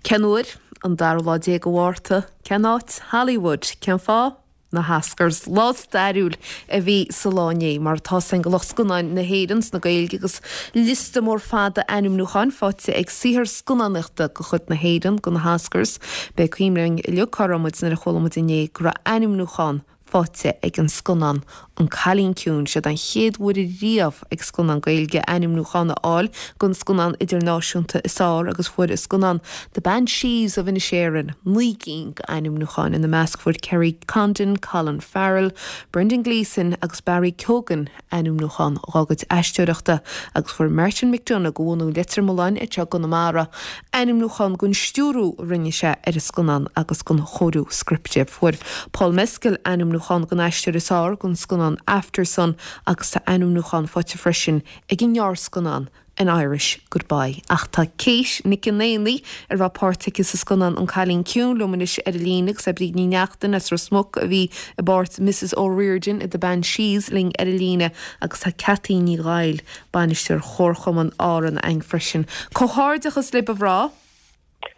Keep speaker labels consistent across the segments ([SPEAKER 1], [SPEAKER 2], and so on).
[SPEAKER 1] Cén uair? An dara lá de Mhárta. Cén áit? Hollywood. Cén fáth? Na hOscars. Lá stairiúil a bhí sa lá inné, mar atá 's againn do lucht scannáin na hÉireann 's na Gaeilge agus liosta mór fada ainmniúcháin faighte ag saothar scannánaíochta de chuid na hÉireann do na hOscars. B'é cuimhin linn uilig cá raibh muid nuair a chuala muid inné go raibh ainmniúchán faighte ag an scannán An Cailín Ciúin. Siod an chéad uair riamh ag scannán Gaeilge ainmniúchán a fháil don scannán idirnáisiúnta is fearr agus fuair an scannán The Banshees of Inisherin 9 gcinn d'ainmniúcháin. Ina measc fuair Kerry Condon, Colin Farrell, Brendan Gleeson agus Barry Keoghan ainmniúchán dhá gcuid aisteoireachta agus fuair Martin McDonagh de bhunadh Leitir Mealláin anseo i gConamara ainmniúchán don stiúrú a rinne sé ar an scannán agus don chóiriú scripte. Fuair Paul Mescal ainmniúchán don aisteoir is fearr don scannán Aftersun agus tá ainmniúchán faighte freisin ag an ngearrscannán An Irish Goodbye. Ach tá Kate Nic an Éanaigh, a raibh páirt aici sa scannán An Cailín Ciúin, liom anois ar an líne agus tá Bríd Ní Neachtain as Ros Muc a bhí i bpáirt Mrs O'Riordan i The Banshees linn ar an líne agus tá Ceataí Ní Dhaill, bainisteoir Chomharchumann Árann againn freisin. Comhghairdeachas libh a mhná!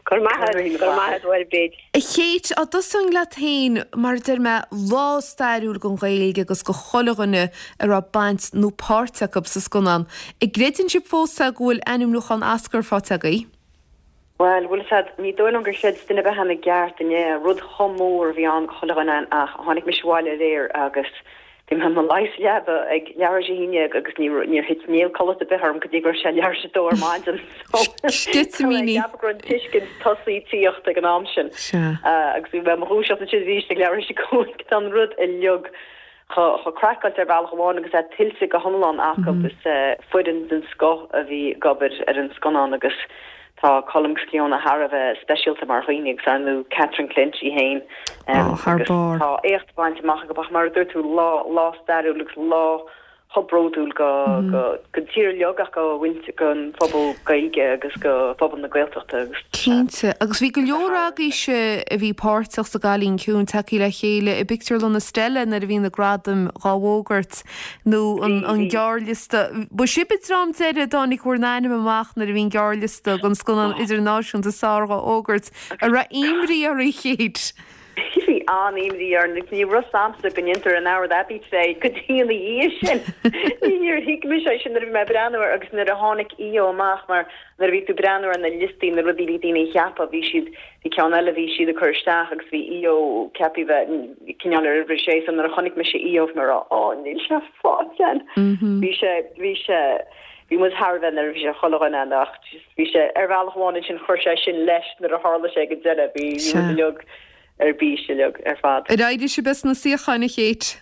[SPEAKER 2] Go raibh maith agat, go raibh maith agat, a Bhríd.
[SPEAKER 1] A Kate, á dtosóinn leat féin, mar a deir mé, lá stairiúil don Ghaeilge agus do chuile dhuine a raibh baint nó páirt acu sa scannán. An gcreideann sibh fós é go bhfuil ainmniúchán Oscar faighte agaibh?
[SPEAKER 2] Bhuel, bhfuil 'fhios a'd, ní dóigh liom gur chreid duine ar bith againn i gceart inné, rud chomh mór a bhí ann do chuile dhuine againn ach tháinig mise abhaile aréir agus Bhí mé i mo luí sa leaba ag leathuair tar éis a haon déag agus níor thit néal codlata ar bith orm go dtí go raibh sé leathuair tar éis a dó ar maidin.
[SPEAKER 1] Sceitimíní.
[SPEAKER 2] Ceapadh go raibh an tuiscint tosaí tíocht ag an am sin. Agus bhí mé i mo dhúiseacht ansin arís ag leathuair tar éis a cúig. Tá an rud uilig chomh craiceáilte ar bhealach amháin agus é tuillte go hiomlán acu. Is foireann den scoth a bhí ag obair ar an scannán agus Tá Colm agus Clíona thar a bheith speisialta mar dhaoine agus ar ndú Catherine Clinch í fhéin
[SPEAKER 1] agus
[SPEAKER 2] tá éacht bainte amach acu ach mar a dúirt tú lá lá stairiúil agus lá chomh bródúil go go don tír uilig ach go mhuintir don phobal Gaeilge agus go phobal na Gaeltachta agus
[SPEAKER 1] Cinnte. Agus bhí go leor agaibhse a bhí páirteach sa gCailín Ciúin tagtha le chéile i bpictiúrlann Estella nuair a bhí na gradaim dhá bhfógairt. nó an gearrliosta. Ba sibh an dream deiridh a dtáinig bhur n-ainm amach nuair a bhí an gearrliosta don scannán idirnáisiúnta is fearr dhá fhógairt. An raibh imní oraibh, a Kate?
[SPEAKER 2] Bhí an-imní orainn agus ní raibh 'fhios a'msa go ndéantar an Howard Abbey plé go dtí ina dhiaidh sin. Níor thuig mise é sin nuair a bhí mé ag breathnú air agus nuair a tháinig EO amach mar nuair a bhí tú ag breathnú ar na liostaí na rudaí a bhí daoine a cheapadh bhí siad Bhí ceann eile a bhí siad ag cur isteach agus bhí EO ceaptha bheith cineál ar uimhir a sé so nuair a chonaic mise EO bhí mé ag rá ó níl sé faighte againn. Bhí sé, bhí sé, bhí muid thar a bheith neirbhíseach chuile dhuine ann ach just bhí sé ar bhealach amháin ansin chuir sé sin leis nuair a tharla sé ag an deireadh bhí bhí muid uilig ar bís uilig ar fad.
[SPEAKER 1] Ar éirigh sibh as na suíocháin a Kate?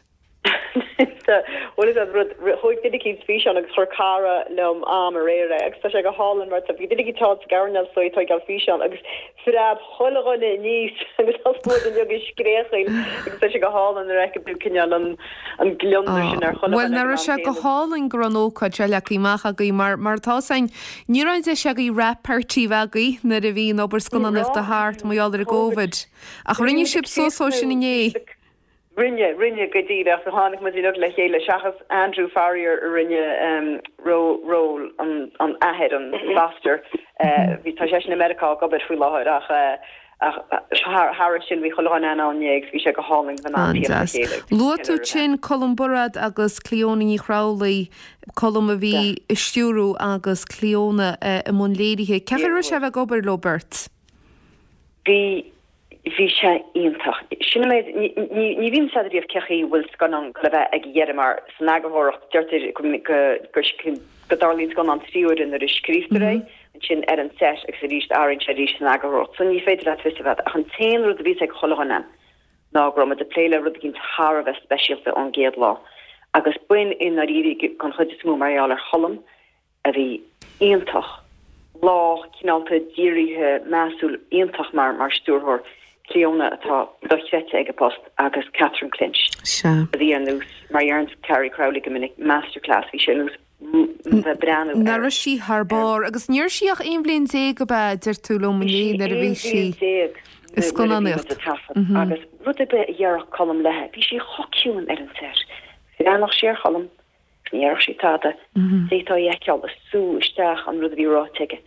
[SPEAKER 2] Bhuel is an rud, thóig duine eicínt físeán agus chuir cara liom am aréir é agus tá sé go hálainn mar tá bhí duine eicínt thall sa gcoirnéal so ag tóigeáil físeán agus phreab chuile dhuine aníos agus thosaigh muid uilig ag scréachaíl agus tá sé go hálainn nuair a fheiceann tú cineál an an gliondar sin ar chuile
[SPEAKER 1] Bhuel dhuine ag an nach raibh sé go hálainn go raibh an ócáid seo leagtha amach agaibh mar mar atá 'fhios a'inn ní raibh an deis agaibh wrap party a bheith agaibh nuair a bhí an obair scannánaíochta thart mar gheall ar an gCovid. Ach rinne sibh suas dhó sin inné.
[SPEAKER 2] Rinne, rinne go díreach. Tháinig muid uilig le chéile, seachas Andrew Farrier a rinne ról an athair, an foster. Bhí, tá seisean i Meiriceá ag obair faoi láthair ach thairis sin bhí chuile dhuine ann inné agus bhí sé go hálainn bheith in ann tíocht le
[SPEAKER 1] chéile. Luaigh tú ansin Colm Bairéad agus Clíona Ní Chramhlaigh, Colm a bhí ag stiúrú agus Clíona i mbun léirithe. Cén chaoi a raibh sé a bheith ag obair leo beirt?
[SPEAKER 2] Bhí Bhí sé iontach. Sin an méid, ní bhíonn 'fhios a'd riamh cé chaoi bhfuil scannán le bheith ag a dheireadh mar san eagarthóireacht deirtear go go dtarlaíonn scannán 3 huaire nuair a scríobhtar é, ansin ar an set agus arís athraíonn sé arís san eagarthóireacht. So ní féidir leat fios a bheith ach an t-aon rud a bhí 'fhios ag chuile dhuine ná go raibh muid ag plé le rud eicínt thar a bheith speisialta ón gcéad lá agus b'in i ndáiríre den chuid is mó mar gheall ar Cholm a bhí iontach, lách, cineálta, dírithe, measúil, iontach mar mar stiúrthóir, Clíona atá dochreidte ag a post agus Catherine Clinch
[SPEAKER 1] Sea.
[SPEAKER 2] a bhí ar nós, mar a deireann Carrie Crowley go minic, masterclass, bhí sé ar nós bheith breathnú
[SPEAKER 1] ar. Nach raibh sí thar barr agus ní raibh sí ach 11 bhliain ab ea, deir tú liom
[SPEAKER 2] Bhí
[SPEAKER 1] inné
[SPEAKER 2] sí
[SPEAKER 1] nuair a bhí
[SPEAKER 2] 11
[SPEAKER 1] sí
[SPEAKER 2] bhliain
[SPEAKER 1] i
[SPEAKER 2] nuair a bhí muid
[SPEAKER 1] scannánaíocht.
[SPEAKER 2] ag taifead agus rud ar bith a dhéarfadh Colm léi, bhí sí chomh ciúin ar an set. Bhreathnódh sí ar Cholm, Ní dhéarfadh sí tada. D'fhéadfá a fheiceáil ag sú isteach an rud a bhí ráite aige.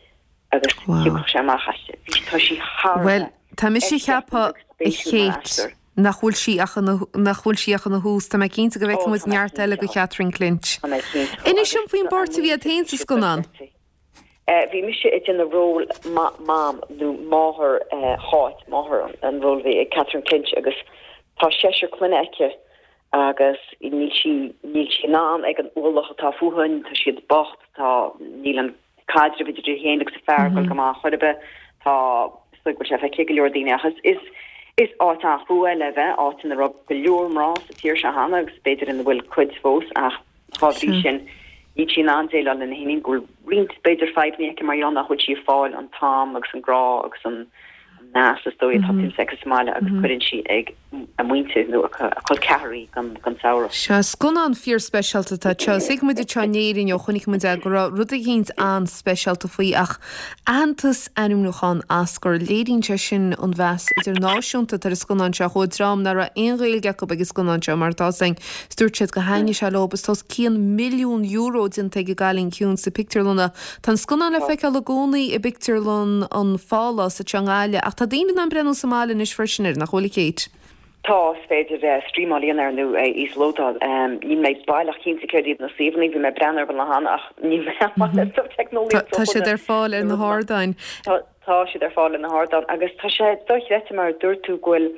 [SPEAKER 2] Agus thiocfadh sé amach aisti. Bhí, tá sí thar a
[SPEAKER 1] Bhuel, tá mise ag ceapadh, a Kate, nach bhfuil sí ach ina, nach bhfuil sí ach ina thús. Tá mé cinnte go bhfeicfidh muid neart eile de Chatherine Clinch.
[SPEAKER 2] Tá mé cinnte.
[SPEAKER 1] Inis dom faoin bpáirt a bhí agat féin sa scannán.
[SPEAKER 2] Bhí mise ag déanamh ról Mam nó máthair Cháit, máthair an ról a bhí ag Catherine Clinch agus tá seisear clainne aici agus níl sí, níl sí in ann ag an ualach atá fúithi, tá siad bocht, tá, níl an caidreamh idir í féin agus a fear ag dul go maith chor ar bith, tá, is dóigh go bhfuil sé feicthe ag go leor daoine ach is, is, is áit an-chrua le bheith, áit ina raibh go leor mná sa tír seo cheana agus b'fhéidir ina bhfuil cuid fós ach dá bhrí sin níl sí in ann déileáil lena hiníon, go bhfuil roinnt b'fhéidir fadhbanna aici mar gheall nach bhfuil sí ag fáil an t-am agus an grá agus an meas is dóigh atá tuillte aici sa mbaile agus cuireann sí ag a muintir nó a col ceathar í don samhradh.
[SPEAKER 1] Sea, scannán fíorspeisialta atá anseo. Thuig muid anseo in Éirinn ó chonaic muid é go raibh rud eicínt an-speisialta faoi ach aitheantas ainmniúchán Oscar, léiríonn sé sin an mheas idirnáisiúnta atá ar an scannán seo. Chuaigh dream nach raibh aon Ghaeilge acu ag an scannán seo mar atá againn is dúirt siad gur thaitnigh sé leo is tá os cionn €1 milliún déanta ag An Cailín Ciúin sna pictiúrlanna. Tá an scannán le feiceáil i gcónaí i bpictiúrlann an Phálás anseo i nGaillimh ach tá daoine in ann breathnú sa mbaile anois freisin air, nach bhfuil, a Kate?
[SPEAKER 2] Tá, is féidir streamáil a dhéanamh air nó é a íoslódáil. Níl mé baileach cinnte céard iad na suíomhanna, bhí mé ag breathnú orthu an lá cheana ach níl mé an-mhaith le stuif teicneolaíochta.
[SPEAKER 1] Tá siad ar fáil ar na hardáin.
[SPEAKER 2] Tá siad ar fáil ar na hardáin agus tá sé dochreidte mar a dúirt tú go bhfuil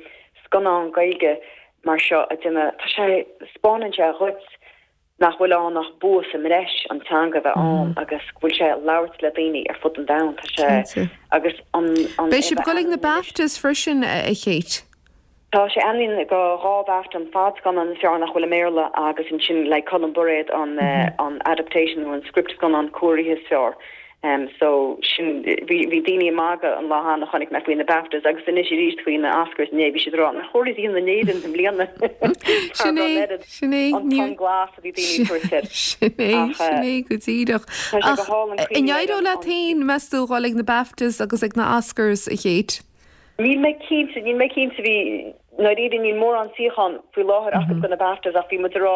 [SPEAKER 2] scannán Gaeilge mar seo a déanamh, tá sé, 'spáineann sé dhuit nach bhfuil ann ach bua sa mbreis an teanga a bheith ann agus go bhfuil sé ag labhairt le daoine ar fud an domhain. Tá sé agus an
[SPEAKER 1] an Beidh sibh ag dul ag na BAFTAs freisin, a Kate?
[SPEAKER 2] Tá sé ainmnithe do dhá BAFTA, an fadscannán is fearr nach bhfuil i mBéarla agus ansin le Colm Bairéad an an adaptation nó an script scannán cóirithe is fearr. So sin, bhí, bhí daoine ag magadh an lá cheana chonaic mé faoi na BAFTAs agus anois arís faoi na Oscars inné, bhí siad ag rá nach chóir iad a dhéanamh in Éirinn i mbliana
[SPEAKER 1] Sin é, sin é,
[SPEAKER 2] an tonn glas a bhí daoine ag tabhairt air.
[SPEAKER 1] Sin é, sin é go díreach.
[SPEAKER 2] Tá sé go hálainn
[SPEAKER 1] Ach an éireoidh leat féin, meas tú, dhul ag na BAFTAs agus ag na Oscars, a Kate?
[SPEAKER 2] Níl mé cinnte, níl mé cinnte, bhí, ndáiríre níl mórán suíochán faoi láthair acu do na BAFTAs ach bhí muid ag rá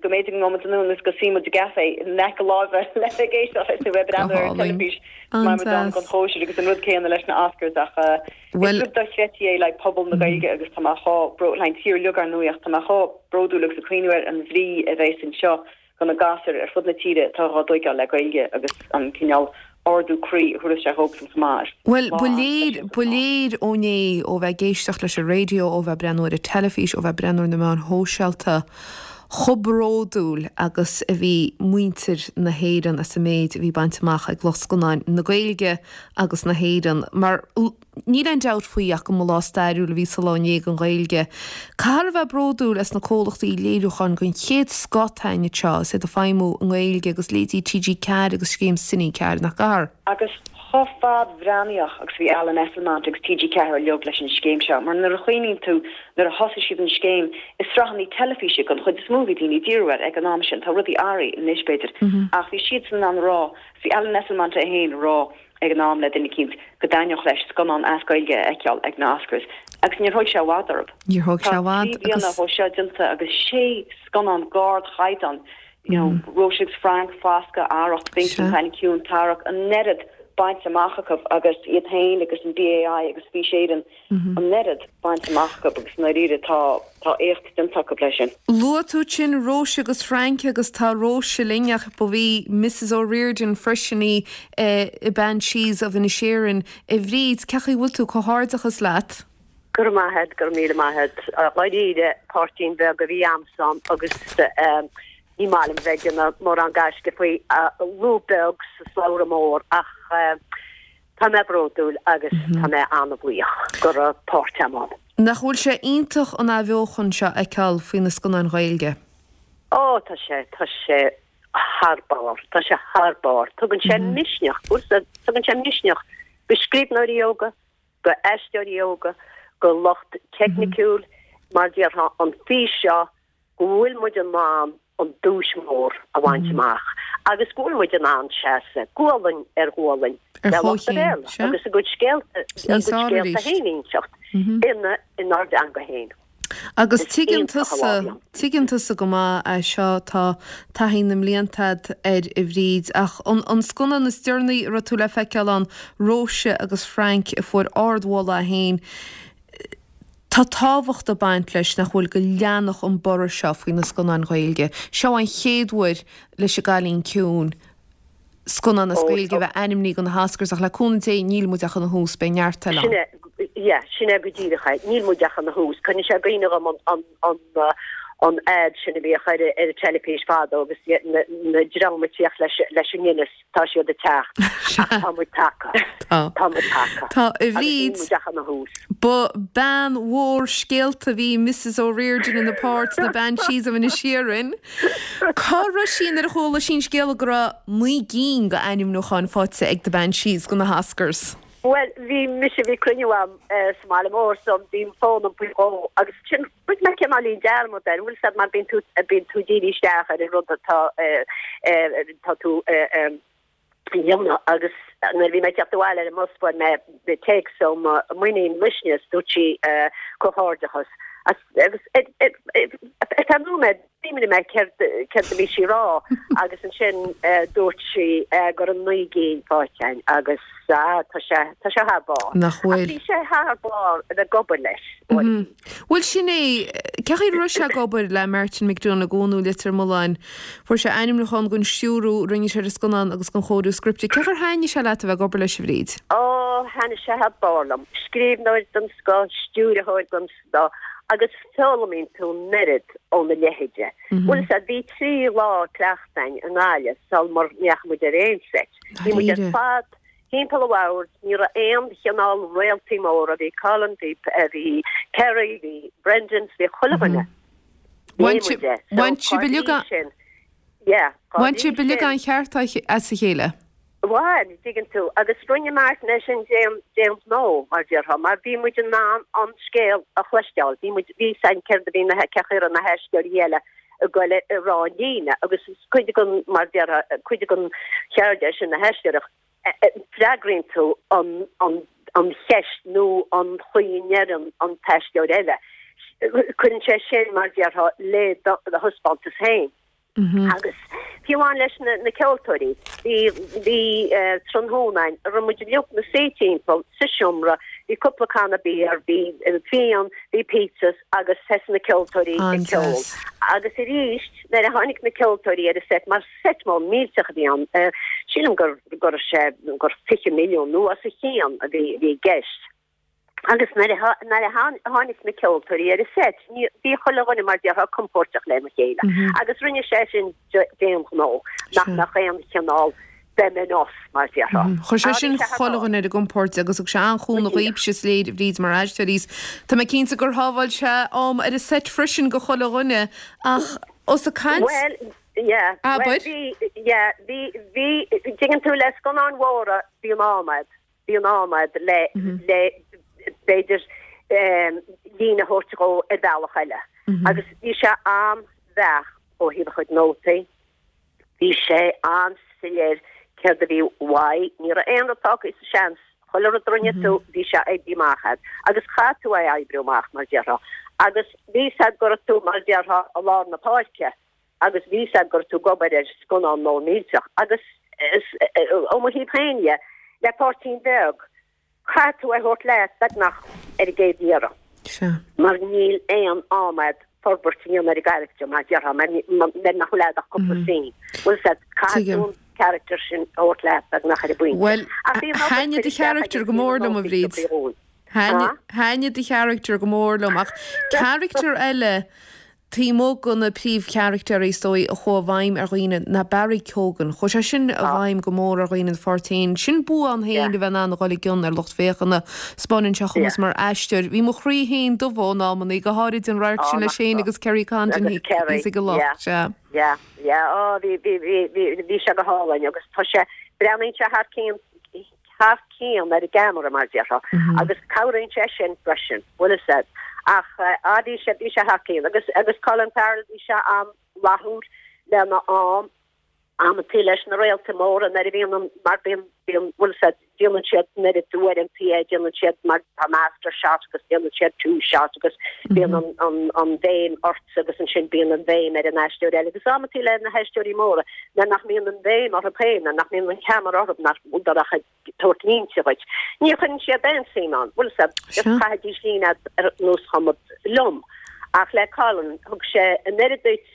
[SPEAKER 2] go mb'fhéidir go ngabhfaidh muid anonn agus go suí muid i gcafé in aice láimhe le bheith ag éisteacht leis nó bheith ag breathnú ar an teilifís go mbeidh muid ann don chóisir agus an rud céanna leis na Oscars ach is rud dochreidte é le pobal na Gaeilge agus tá mé chomh bró, le an tír uilig ar ndóigh ach tá mé chomh bródúil agus ag cuimhniú ar an bhrí a bheas anseo do na gasúir ar fud na tíre atá dhá dtóigeáil le Gaeilge agus an cineál ardú croí a thabharfas sé dhóibhsan chomh maith.
[SPEAKER 1] Bhuel, ba léir, ba léir ó inné, ó bheith ag éisteacht leis an raidió, ó bheith ag breathnú ar an teilifís, ó bheith ag breathnú ar na meáin shóisialta, chomh bródúil agus a bhí muintir na hÉireann as an méid a bhí bainte amach ag lucht scannáin na Gaeilge agus na hÉireann. Mar. Níl aon dabht faoi ach go mba lá stairiúil a bhí sa lá inné don Ghaeilge. Caithfear a bheith bródúil as na comhlachtaí léiriúcháin den chéad scoth atá againn anseo is iad ag feidhmiú i nGaeilge agus leithéidí TG4 agus scéim Cine 4, nach gcaithfear?
[SPEAKER 2] Agus chomh fadbhreathnaíoch agus a bhí Alan Esslemont agus TG4 uilig leis an scéim seo, mar nuair a chuimhníonn tú nuair a thosaigh siad an scéim, is sraitheanna teilifíse den chuid is mó a bhí daoine ag díriú air ag an am sin, tá rudaí athraithe anois b'fhéidir, ach bhí siadsan in ann a rá, bhí Alan Esslemont é féin a rá, ag an am le duine eicínt go dtaitneodh leis scannán as Gaeilge a fheiceáil ag na Oscars agus níor thóig sé i bhfad orthu.
[SPEAKER 1] Níor thóig sé i bhfad
[SPEAKER 2] Tá 3 bliana ó seo déanta agus sé scannán d'ardchaighdeán, you know, Róise agus Frank, Foscadh, Arracht, Binky, An Cailín Ciúin, Tarrac, an oiread bainte amach acu agus iad féin agus an BAI agus Fís Éireann an oiread bainte amach acu agus i ndáiríre tá tá éacht déanta acu leis sin.
[SPEAKER 1] Luaigh tú ansin Róise agus Frank agus tá Róise linn ach ba í Mrs O'Riordan freisin í i Banshees of Inisherin. A Bhríd, cén chaoi a bhfuil tú? Comhghairdeachas leat.
[SPEAKER 3] Go raibh maith a't, go raibh míle maith a't. Dháiríre, páirtín bheag a bhí a'msa ann agus ní maith liom bheith ag déanamh mórán gaisce faoi, lúb beag sa slabhra mór ach Tá mé bródúil agus tá mé an-bhuíoch go raibh páirt a'm ann.
[SPEAKER 1] Nach bhfuil sé iontach an athbheochan seo a fheiceáil faoi na scannáin Ghaeilge?
[SPEAKER 3] Ó, tá sé, tá sé thar barr, tá sé thar barr. Tugann sé misneach, tugann sé misneach go scríbhneoirí óga, go aisteoirí óga, go lucht teicniciúil, mar déarfá, an fís seo go bhfuil muid in ann an duais mhór a bhaint amach agus go bhfuil muid in ann seasamh gualainn ar ghualainn
[SPEAKER 1] le
[SPEAKER 3] lucht an Bhéarla agus a gcuid scéalta, a gcuid scéalta féin a inseacht ina, inár dteanga féin.
[SPEAKER 1] Agus tuigeann tusa, tuigeann tusa go maith é seo, tá taithí na mblianta a'd air a Bhríd, ach an, an scannán is deireanaí a raibh tú le feiceáil ann, Róise agus Frank, a fuair ardmholadh é féin, tá tábhacht ag baint leis, nach bhfuil, go leanfadh an borradh seo faoi na scannáin Ghaeilge. Seo an chéad uair leis an gCailín Ciúin scannán as Gaeilge a bheith ainmnithe do na hOscars ach le cúnamh Dé níl muid ach ina thús, beidh neart eile ann.
[SPEAKER 3] Sin é, yeah, sin é go díreach é. Níl muid ach ina thús. Cuireann sé i gcuimhne dhom an, an, an, an ad sin a bhíodh ar, ar an teilifís fadó agus na, na dream ag tíocht leis, leis an Guinness, tá siad ag teacht. Ach tá muid tagtha.
[SPEAKER 1] Tá.
[SPEAKER 3] Tá muid tagtha.
[SPEAKER 1] Tá, a
[SPEAKER 3] Agus níl
[SPEAKER 1] Bhríd.
[SPEAKER 3] muid ach ina thús.
[SPEAKER 1] Ba bean mhór scéalta a bhí i Mrs O'Riordan ina páirt sna Banshees of Inisherin. Cá raibh sí nuair a chuala sí an scéala go raibh 9 gcinn d'ainmniúcháin faighte ag The Banshees do na hOscars?
[SPEAKER 3] Bhuel, bhí mise, bhí cruinniú a'm sa mbaile mór so bhí an fón a'm faoi dhó agus ansin rinne mé cineáilín dearmad air, bhfuil 'fhios a'd mar bíonn tú, bíonn tú dírithe isteach ar an rud atá, tá tú a dhéanamh agus nuair a bhí mé ag teacht abhaile ar an mbus fuair mé téacs ó mo m'iníon Luisne is dúirt sí comhghairdeachas agus ar feadh nóiméad Chuimhnigh mé céard céard a bhí sí a rá agus ansin dúirt sí go raibh 9 gcinn faighte againn agus ah tá sé tá sé thar barr.
[SPEAKER 1] Nach
[SPEAKER 3] Ach
[SPEAKER 1] bhfuil?
[SPEAKER 3] bhí sé thar barr a bheith ag obair leis.
[SPEAKER 1] Bhuel sin é, cén chaoi a raibh sé ag obair le Martin McDonagh ó Leitir Mealláin? Fuair sé ainmniúchán don stiúrú a rinne sé ar an scannán agus don chóiriú scripte. Cén chaoi ar thaitnigh sé leat a bheith ag obair leis a Bhríd?
[SPEAKER 3] Ó, thaitnigh sé thar barr liom. Scríbhneoir den scoth, stiúrthóir den scoth agus foghlaimíonn tú an oiread óna leithéide. Bhfuil 'fhios a'd, bhí 3 lá cleachta againn i nGaillimh sul mar ndeachaigh muid ar aon seit. Bhí muid ar fad timpeall an bhoird, ní raibh aon chineál réaltaí móra, bhí Colin, bhí bhí Kerry, bhí Brendan, bhí chuile dhuine.
[SPEAKER 1] Bhain sibh uilig an
[SPEAKER 3] Yeah,
[SPEAKER 1] Bhain sibh uilig an cheart as a chéile.
[SPEAKER 3] Bhain, dtuigeann tú, agus rinne Martin é sin d'aon d'aon ghnó, mar déarfá, mar bhí muid in ann an scéal a chloisteáil, bhí muid, bhí 'fhios a'inn céard a bhí na, cén chaoi a raibh na haisteoirí eile ag goil a rá an líne, agus is cuid den, mar déarfá, cuid den cheird é sin na haisteoireacht, freagraíonn tú an, an, an cheist nó an chaoi a ndeireann an t-aisteoir eile. Cuireann sé sin, mar déarfá, le do thaispeántas féin. Agus fiú amháin leis na ceoltóirí, bhí bhí tráthnóna againn, a raibh muid uilig 'na suí timpeall sa seomra, bhí cúpla canna beer, bhí fíon, bhí pizzas agus thosaigh na ceoltóirí ag ceol. Agus arís, nuair a tháinig na ceoltóirí ar an seit, mar seit mór millteach a bhí ann, sílim gur go raibh sé gur 20 milliún nó os a chionn a bhí i gceist. Agus nuair a nuair a tháinig na ceoltóirí ar an seit, ní, bhí chuile dhuine mar déarfá compóirteach lena chéile. Agus rinne sé sin d'aon ghnó, nach mbeadh aon chineál them and us, mar déarfá.
[SPEAKER 1] Chuir sé sin chuile dhuine ar a gcompord agus thug sé an-chúnamh dhaoibhse, is léir, a Bhríd, mar aisteoirí. Tá mé cinnte gur shábháil sé am ar an seit freisin do chuile dhuine ach os ag caint.
[SPEAKER 3] Bhuel, yeah,
[SPEAKER 1] Abair.
[SPEAKER 3] bhuel, bhí, yeah, bhí, bhí, dtuigeann tú, le scannáin mhóra, bíonn am a'd. Bíonn am a'd le, le, b'fhéidir, líne a thabhairt dhó ar bhealach eile. Agus bhí sé an-bheacht ó thaobh a chuid nótaí, bhí sé an-soiléir céard a bhí uaidh, ní raibh aon rud fágtha sa seans, chuile rud a rinne tú, bhí sé oibrithe amach a'd. Agus chaith tú é a oibriú amach, mar déarfá. Agus bhí 'fhios a'd go raibh tú, mar déarfá, i lár na páirce. agus bhí 'fhios a'd go raibh tú ag obair ar scannán mór millteach agus ó mo thaobh féin dhe, le páirtín beag, caithfidh tú é a thabhairt leat beagnach ar an gcéad iarraidh.
[SPEAKER 1] Sea.
[SPEAKER 3] Mar níl aon am a'd forbairt a dhéanamh ar an gcarachtar, mar déarfá, mar nach bhfuil a'd ach cúpla scene. Bhfuil 'fhios a'd, caithfidh tú an charachtar sin a thabhairt leat beagnach ar an bpointe.
[SPEAKER 1] Bhuel,
[SPEAKER 3] Ach bhí an obair
[SPEAKER 1] thaitnigh
[SPEAKER 3] curtha
[SPEAKER 1] do
[SPEAKER 3] isteach aige
[SPEAKER 1] charachtar go
[SPEAKER 3] bhí na
[SPEAKER 1] mór liom, a
[SPEAKER 3] nótaí
[SPEAKER 1] Bhríd.
[SPEAKER 3] tugtha dhúinn.
[SPEAKER 1] Thaitnigh do charachtar go mór liom, ach carachtar eile Taobh amuigh de na príomhcharachtair is dóigh a chuaigh i bhfeidhm ar dhaoine ná Barry Keoghan. Chuaigh sé sin i bhfeidhm go mór ar dhaoine ina pháirt féin. Sin bua ann féin a bheith in ann a dhul i gcion ar lucht féachana. 'Spáineann sé a chumas mar aisteoir. Bhí mo chroí féin dubh in amannaí, go háirid an radharc sin leis féin agus Kerry Condon thíos ag an loch. Sea.
[SPEAKER 3] Yeah, yeah, oh bhí, bhí, bhí, bhí sé go hálainn agus tá sé, breathnaíonn sé thar cionn, thar cionn ar an gceamara, mar a déarfá, agus cabhraíonn sé sin freisin, bhfuil fhios a'd. Ach ah bhí sé, bhí sé thar cionn. Agus, agus Colin Farrell, bhí sé an-fhlaithiúil lena am, amantaí leis na réaltaí móra nuair a bhíonn an, mar bíonn. Bíonn, bhfuil 'fhios a'd, déanann siad an oiread uaireantaí é, déanann siad mar tá master shot agus déanann siad two shot agus bíonn an, an, an bhéim ortsa agus ansin bíonn an bhéim ar an aisteoir eile agus amantaí le na haisteoirí móra nuair nach mbíonn an bhéim orthu féin, nuair nach mbíonn an ceamara orthu, nach bhfuil ach ag tabhairt línte dhuit. Ní chuireann siad aon suim ann, bhfuil 'fhios a'd, just chaithfidís líne ar nós chuma liom. Ach le Colin, thug sé an oiread duit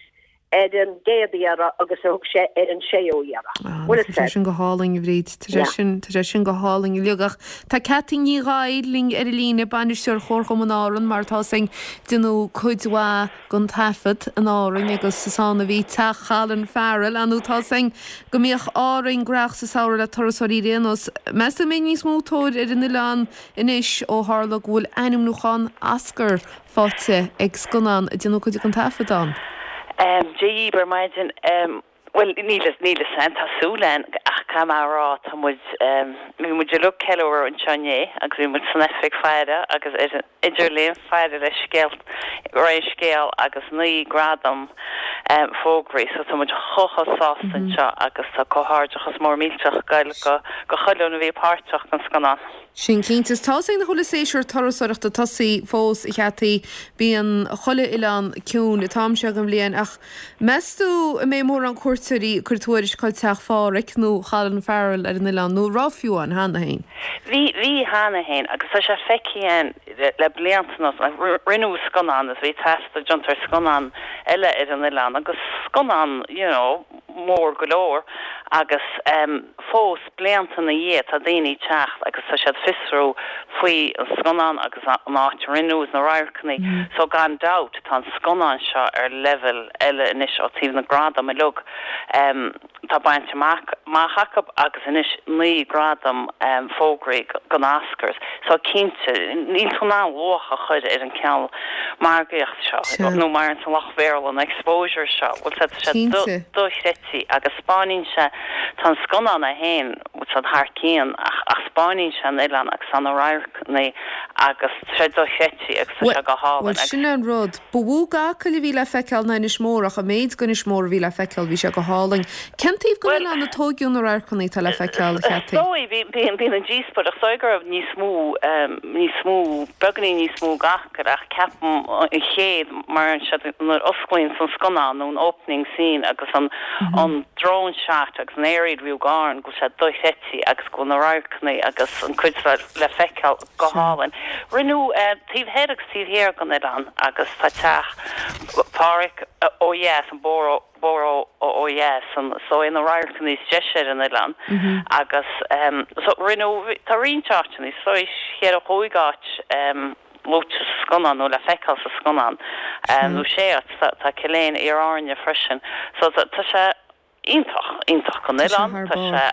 [SPEAKER 3] ar an gcéad iarraidh agus a thug sé ar an séú iarraidh.
[SPEAKER 1] Ah, tá sé sin go hálainn, a Bhríd. Tá sé sin, tá sé sin go hálainn uilig. Ach tá Ceaití Ní Ghadhra linn ar an líne, bainisteoir Chomharchumann Árann, mar atá 'fhios a'inn, déanadh cuid mhaith den taifead in Árainn agus is ann a bhí teach Cholin Farrell. Ar ndóigh tá 'fhios a'inn go mbíodh Árainn gnóthach sa samhradh le turasóirí ar aon nós. Meas tú an mbeidh níos mó tóir ar an oileán anois ó tharla go bhfuil ainmniúchán Oscar faighte ag scannán a déanadh cuid den taifead ann.
[SPEAKER 4] Dia dhíb ar maidin. Bhuel, níl a fhios a'm, tá súil a'inn, ach caithfidh mé a rá, tá muid, bhí muid uilig ag ceiliúradh anseo inné agus bhí muid san oifig faire agus ar an idirlíon faire le scéal, rith an scéal agus 9 gradam fógraithe so tá muid chomh chomh sásta anseo agus tá comhghairdeachas mór millteach ag goil go go chuile dhuine a bhí páirteach den scannán.
[SPEAKER 1] Sin cinnte. Is tá 'fhios a'inn nach bhfuil an séasúr turasóireachta tosaithe fós, a Cheaití. Bíonn chuile oileán ciúin an t-am seo den bhliain ach meas tú an mbeidh mórán cuairteoirí ag cur tuairisc chuig teach Phádhraic nó Cholin Farrell ar an oileán nó an raibh fiú ann cheana féin?
[SPEAKER 4] Bhí, bhí cheana féin agus tá sé feicthe a'inn le blianta anuas. Rinneadh scannán agus bhí taifeadadh déanta ar scannán eile ar an oileán agus scannán, you know, mór go leor agus fós blianta ina dhiaidh tá daoine ag teacht agus tá siad fiosrú faoi an scannán agus an áit a rinneadh agus na radharcanna so gan dabht tá an scannán seo ar leibhéal eile anois ó taobh na gradam uilig tá bainte amach amach acu agus anois 9 gradam fógraithe don Oscars so cinnte níl tú in ann luach a chur ar an cineál margaíocht seo nó mar an lucht Bhéarla an exposure seo bhfuil tá sé dochreidte agus 'spáineann sé tá an scannán é féin bhfuil sé thar cionn ach ach 'spáineann sé an oileán agus tá na radharcanna agus tá sé dochreidte agus tá sé go hálainn
[SPEAKER 1] Bhuel sin an rud. Ba mhó d'Acaill a bhí le feiceáil ná Inis Mór ach an méid d'Inis Mór a bhí le feiceáil bhí sé go hálainn. Cén taobh den oileán a tóigeadh na radharcanna atá le feiceáil, a
[SPEAKER 4] Cheaití? Is dóigh, bíonn an díospóireacht, is dóigh go raibh níos mó, níos mó, beagáinín níos mó d'Acaill ach ceapaim an chéad, mar an siad nuair a osclaíonn an scannán nó an opening scene agus an an drone shot agus an aerial view d'Árainn go bhfuil sé dochreidte agus go bhfuil na radharcanna agus an cuid le feiceáil go hálainn. Rinneadh taobh thoir agus taobh thiar den oileán agus tá teach Phádhraic ó dheas, an bóthar bóthar ó dheas, an is dóigh na radharcanna is deise ar an oileán agus so rinneadh, tá roinnt áiteanna, is dóigh cheithre chúig áit luaite sa scannán nó le feiceáil sa scannán nó sé áit, tá Cill Éin, Iar Áirne freisin so tá sé. Iontach, iontach don oileán. Tá sé,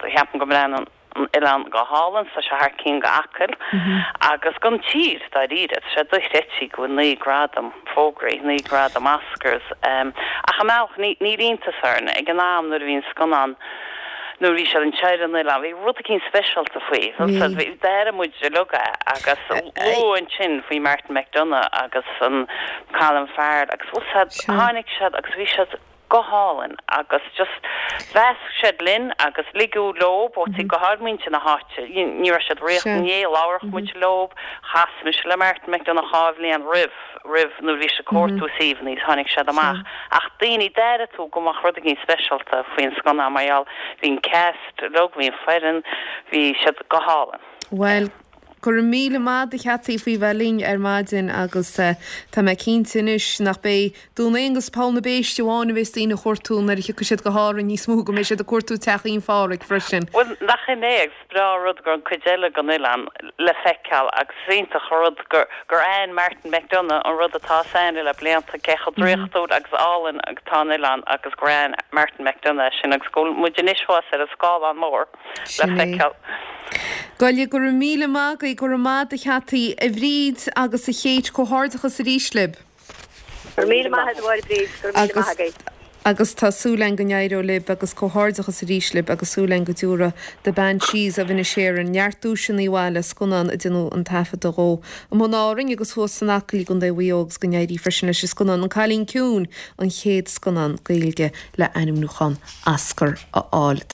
[SPEAKER 4] ceapaim go mbreathnaíonn an oileán go hálainn, tá sé thar cionn d'Acaill agus don tír, dáiríre. Tá sé dochreidte go bhfuil 9 gradam fógraithe, 9 gradam Oscars. Ach i mbealach, níl iontas orainn, ag an am nuair a bhí an scannán, nuair a bhí siad anseo ar an oileán, bhí rud eicínt speisialta faoi. D'airigh muid uilig é agus luadh ansin faoi Martin McDonagh agus an Colin Farrell agus bhfuil 's a'd, tháinig siad agus bhí siad, go hálainn agus just mheasc siad linn agus ligeadh leob ó go háirid muintir na háite, ní raibh siad i ndiaidh labhradh muid leob, chas mise le Martin McDonagh dhá bhliain roimh, roimh nuair a bhí siad ag cuartú suíomhanna is tháinig siad amach ach daoine, d'airigh tú go mbeadh rud éigin speisialta faoin scannán mar gheall, bhí an cast uilig, bhí an foireann, bhí siad go hálainn.
[SPEAKER 1] Bhuel, Go raibh míle maith agat a Cheaití faoi bheith linn ar maidin agus tá mé cinnte anois nach beidh Dún Aonghus Poll na Béiste amháin a bheas daoine a chuartú nuair a thiocfaidh siad go hÁrainn níos mó, go mbeidh siad ag cuartú teachín Phádhraic freisin.
[SPEAKER 4] Bhuel, nach in é agus is breá an rud go raibh an cuid eile den oileán le feiceáil agus is iontach an rud gur gur aithin Martin McDonagh an rud atá 's a'inn le blianta, cé chomh draíochtúil agus álainn atá an oileán agus gur aithin Martin McDonagh é sin agus go bhfuil muid anois thuas ar an scáileán mór. le
[SPEAKER 1] Sin é.
[SPEAKER 4] feiceáil.
[SPEAKER 1] Goile, go raibh míle maith agaibh, go raibh maith agat a Cheaití, a Bhríd agus a Chéit, comhghairdeachas arís libh.
[SPEAKER 3] Go raibh míle maith agat a Mháire Bríd, go raibh míle
[SPEAKER 1] Agus
[SPEAKER 3] maith agaibh.
[SPEAKER 1] agus tá súil againn go n-éireoidh libh agus comhghairdeachas arís libh agus súil againn go dtiúrfaidh The Banshees of Inisherin neart duaiseanna abhaile, scannán a déanadh an taifeadadh dhó amuigh in Árainn agus thuas san Acaill i gContae Mhaigh Eo agus go n-éirí freisin leis an scannán An Cailín Ciúin, an chéad scannán Gaeilge le ainmniúchán Oscar a fháil.